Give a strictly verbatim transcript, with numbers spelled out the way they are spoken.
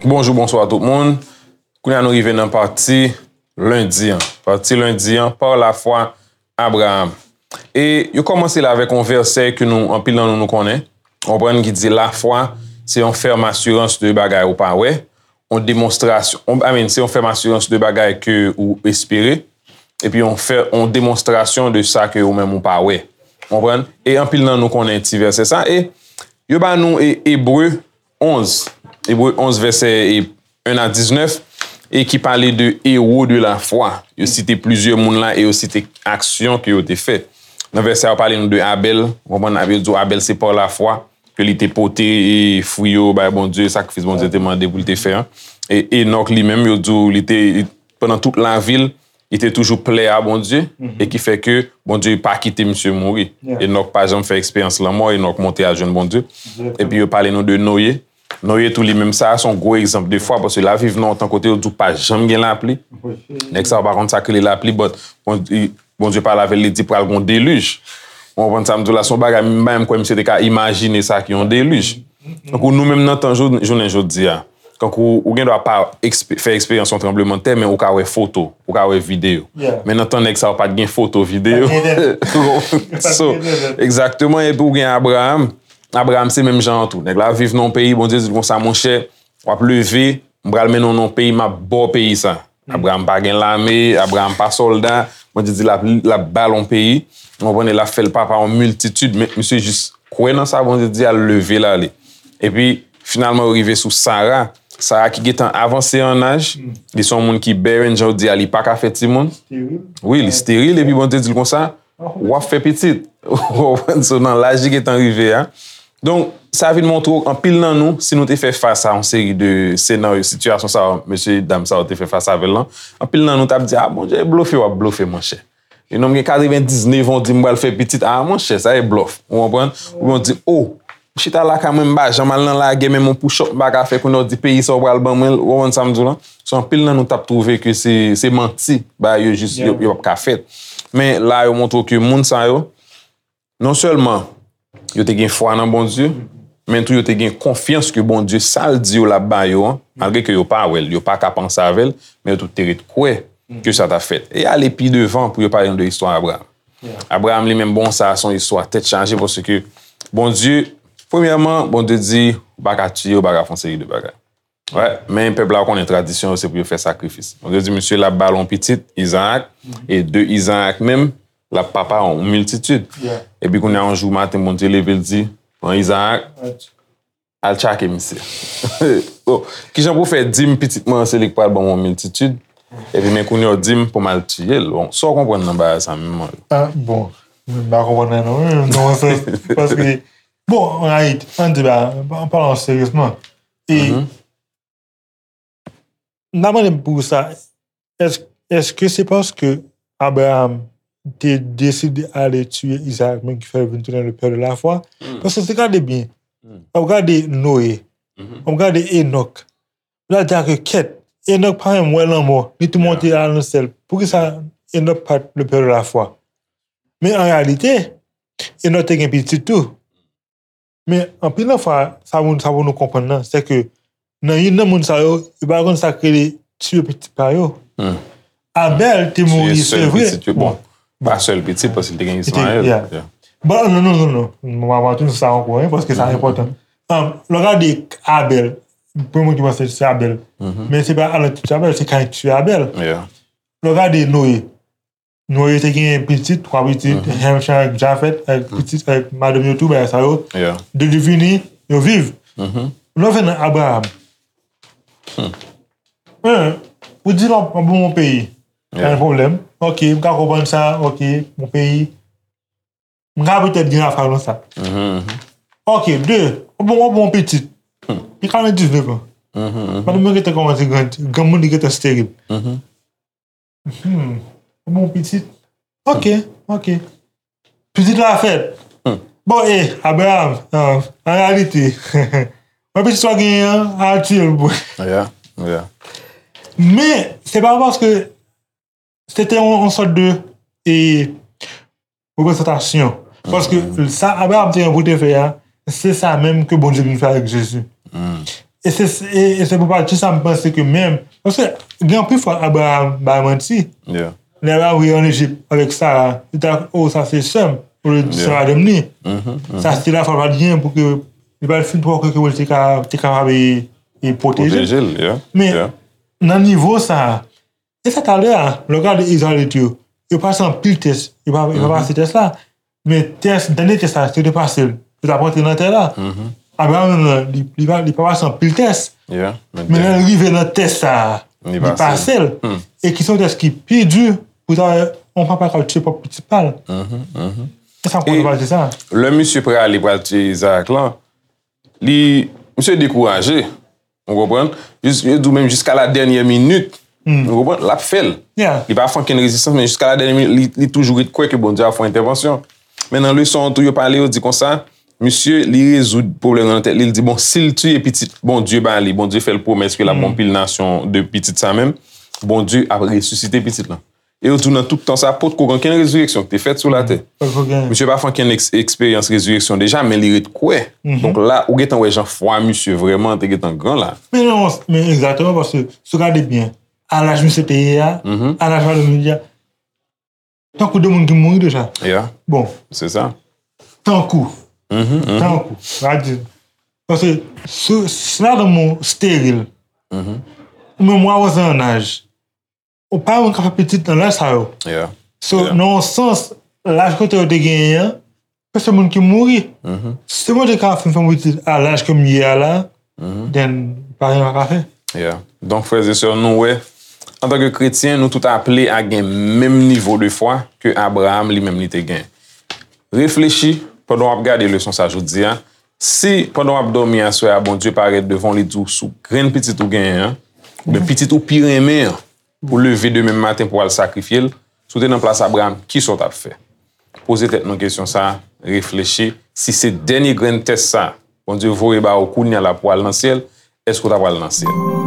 Bonjou, bonswa tout moun. Kounye a nou rive nan pati lendi an. Pati lendi an, par la foi, Abraham. E yo kòmanse la avèk yon vèsè ke nou, anpil nan nou, nou konnen. Ou konprann ki di lafwa, se yon fèm asirans de bagay ou pa wè, yon demonstrasyon, yon, I mean, se yon fèm asirans de bagay ke ou espere, epi yon fè, yon demonstrasyon de sa ke ou menm ou pa wè. Ou konprann? E anpil nan nou konnen ti vèsè sa. E yo ba nou e, Ebre onz, Ebre onz vèsè e en a diznèf, e ki pale de ewo de lafwa. Yo site plizyè moun la e yo site aksyon ke yo te fè. Nan vèsè a, yo pale nou de Abèl. Ou konprann, yo di w Abèl se pa lafwa ke li te pote, e, fwi yo bay Bondye, sakrifis Bondye te mande pou li te fè an. E Enòk li menm, yo di w li te, pandan tout lavi l, li te toujou plè a Bondye, e ki fè ke Bondye pa kite misye mouri. Enòk pa janm fè eksperyans lanmò, Enòk monte al jwenn Bondye. Epi yo pale nou de Noye. Noye tou li menm, sa a se yon gwo egzanp de fwa, paske l ap viv nan yon tan kote yo di w pa janm gen lapli. Nèg sa yo pa konn sa k rele lapli, but Bondye, Bondye pale avè l, li di pral gen yon delij. Ou konprann sa m di w la? Se yon bagay, m pa menm kwè misye te ka imajine sa ki yon delij. Tankou nou menm nan tan jou-, jounen jodi a, tankou ou gen dwa pa ekspe-, fè eksperyans yon tranblemanntè, men ou ka wè foto, ou ka wè videyo. Men nan tan nèg sa yo pa t gen foto, videyo. So, egzakteman, epi ou gen Abraham. Abraham se menm jan an tou. Nèg la viv nan yon peyi, Bondye di l konsa, monchè, w ap leve, m pral mennen w nan yon peyi, m ap ba w peyi sa. Abraham pa gen lame, Abraham pa sòlda, Bondye di l ap, l ap ba l yon peyi, ou konprann, e l ap fè l papa yon miltitid, men misye jis kwè nan sa Bondye di a, l leve l ale. Epi, finalman, yo rive sou Sara. Sara ki gentan avanse an aj, li se yon moun ki bèren, jan yo di a, li pa ka fè timoun. Wi, li steril, epi Bondye di l konsa, w ap fè pitit. Ou konprann? So, nan laj li gentan rive a. Donk, sa vin montre w, anpil nan nou, si nou te fè fas a yon seri de senaryo, sitiyasyon sa yo, mesye dam sa yo te fè fas avè l lan, anpil nan nou t ap di, a, Bondye blofe, w ap blofe, monchè. E nonm gen katrevendiznèf an, w di m pral fè pitit, a, monchè, sa e blòf. Ou konprann? Oubyen w di, o, m chita lakay mwen, m pa janm al nan lagè, menm yon push-up m pa ka fè, kounye a w di peyi sa w pral ban mwen l, ou konprann sa m di w lan? So, anpil nan nou t ap twouve ke se, se manti, bagay yo jis, yo, yo p ap ka fèt. Men la, yo montre w ke moun sa yo, non sèlman yo te gen fwa nan Bondye, men tou yo te gen konfyans ke Bondye, sa l di yo l ap ba yo an, malgre ke yo pa wè l, yo pa ka panse avè l, men yo tout te ret kwè ke sa t ap fèt. E ale pi devan pou yo pale nou de istwa Abraham. Abraham li menm, bon, sa a se yon istwa tèt chaje, paske Bondye, premyèman, Bondye di, ou pa ka tiye, ou pa ka fè yon seri de bagay. Wè, men pèp la konnen tradisyon yo se pou yo fè sakrifis. Bondye di, misye l ap ba l yon pitit, Izaak, e de Izaak menm, l ap papa yon miltitid. Epi kounye a, yon jou maten, Bondye leve, l di, pran Izaak, al tchake misye. Bon, kijan pou fè di m pitit mwen an se li k pral ban m yon miltitid, epi men kounye a w di m pou m al tiye l? Bon, sa w konprann nan bagay sa menm, Mario? A, bon, m pa konprann anyen non, non, sa, paske, bon, an reyalite, ann di ba, an palan seryezman, e, m ta mande m pou sa, èske, èske se paske Abraham te deside ale tiye Izaak menm ki fè l vin tounen le pè de lafwa? Paske si w gade byen, w ap gade Noye, w ap gade Enòk, la di ke kèt, Enòk pa menm wè lanmò, li tou monte al nan syèl. Poukisa Enòk pa t le pè de lafwa? Men an reyalite, Enòk te gen pitit tou. Men anpil nan fwa, sa pou, sa pou nou konprann nan, se ke nan youn nan moun sa yo, yo pa konn sa k rele tiye pitit pa yo. Abèl te mouri, se vre. Bon, pa sèl pitit, paske li te gen Ismayèl. Bon, non, non, non, non. Mwen pa tou sa ankò, wi, paske sa enpòtan. Lè w gade Abèl, premye moun ki panse se Abèl. Men se pa Adan ki tiye Abèl, se Kayen ki tiye Abèl. Lè w gade Noye, Noye te gen pitit, twa pitit, Shem, Cham, Jafet, avèk pitit, avèk madanm yo tou, bagay sa yo. De li vini, yo viv. Nou vin nan Abraham. Ou di non, m ap ban w yon peyi. Pa gen pwoblèm. Ok, m ka konprann sa, ok, yon peyi. M ka petèt gen afè nan sa. Ok, de, ou bon, ou bon pitit. Li katrevendiznèf an. Madanm mwen gentan kòmanse grandi, granmoun li gentan steril. Hmm. Ou bon pitit. Ok, ok. Pitit la fèt. Bon, e, Abraham, an, an reyalite, mwen pitit sa w genyen an, al tiye l pou mwen. Men, se pa paske se te yon, yon sòt de e reprezantasyon. Paske sa Abraram te gen pou te fè a, se sa menm ke Bondye vin fè avèk Jezi. E se, e, e se pou pati sa m panse ke menm, paske gen anpil fwa Abraram bay manti. Lè Abraram rive ann Ejip avèk Sara, li ta, oh, sa se sè m, olye di se madanm li. Sa se te lafwa l pa t genyen pou ke li pa t fin twò kwè ke Bondye te ka, te kapab e, e pwoteje l. Men nan nivo sa a, e sa talè a, lè w gade Izrayelit yo, yo pase anpil tès, yo pa, yo pa pase tès la. Men tès, dènye tès la, yo te pase l. Yo t ap rantre nan tè la. Abraram menm nan, li, li pa, li pa pase anpil tès. Men lè l rive nan tès sa a, li pase l. E ki se yon tès ki pi di pou ta wè yon papa k ap tiye pwòp pitit pa l. E sa m konn pase sa. Lè misye prale pral tiye Izarak lan, li, misye dekouraje. Ou konprann? Jis, yo di w menm jiska la dènyè minit. Ou konprann? L ap fè l. Li pa fè okenn rezistans, men jiska la dènyè minit, li, li toujou ret kwè ke Bondye ap fè yon entèvansyon. Men nan leson an tou, yo pale, yo di konsa, misye, li rezoud pwoblèm nan tèt li, li di, bon, si l tiye pitit Bondye ba li, Bondye fè l pwomès ke l ap gen yon pil nasyon de pitit sa menm, Bondye ap resisite pitit lan. E yo di w nan tout tan sa, potko gen okenn rezireksyon ki te fèt sou latè. Misye pa fè okenn eks-, eksperyans rezireksyon deja, men li ret kwè. Donk la, ou gentan wè jan fwa misye vrèman te gentan gran la. Men non, men egzakteman, paske si w gade byen, a laj misye te ye a, a laj madanm li a, tankou de moun ki mouri deja. Bon. Se sa. Tankou. Tankou. Sa di. Paske si, si madanm ou steril, ou menm w avanse an laj, ou pa menm ka fè pitit nan laj sa yo. So, nan yon sans, laj kote yo te genyen an, se moun ki mouri. Si Bondye ka fin fè m pitit a laj ke m ye a la, then pa gen pa ka fè. Donk, frè e sè, nou wè, antanke kretyen, nou tout aple a gen menm nivo de fwa ke Abraram li menm li te gen. Reflechi pandan w ap gade leson sa jodi a. Si pandan w ap dòmi aswè a, Bondye parèt devan w, li di w sou grenn pitit ou genyen an, oubyen pitit ou pi renmen an, pou leve demen maten pou w al sakrifye l, si w te nan plas Abraram, kisa w t ap fè? Poze tèt nou kesyon sa a, reflechi. Si se dènye grenn tès sa a Bondye voye ba ou kounye a la pou w al nan syèl, èske w ta pral nan syèl?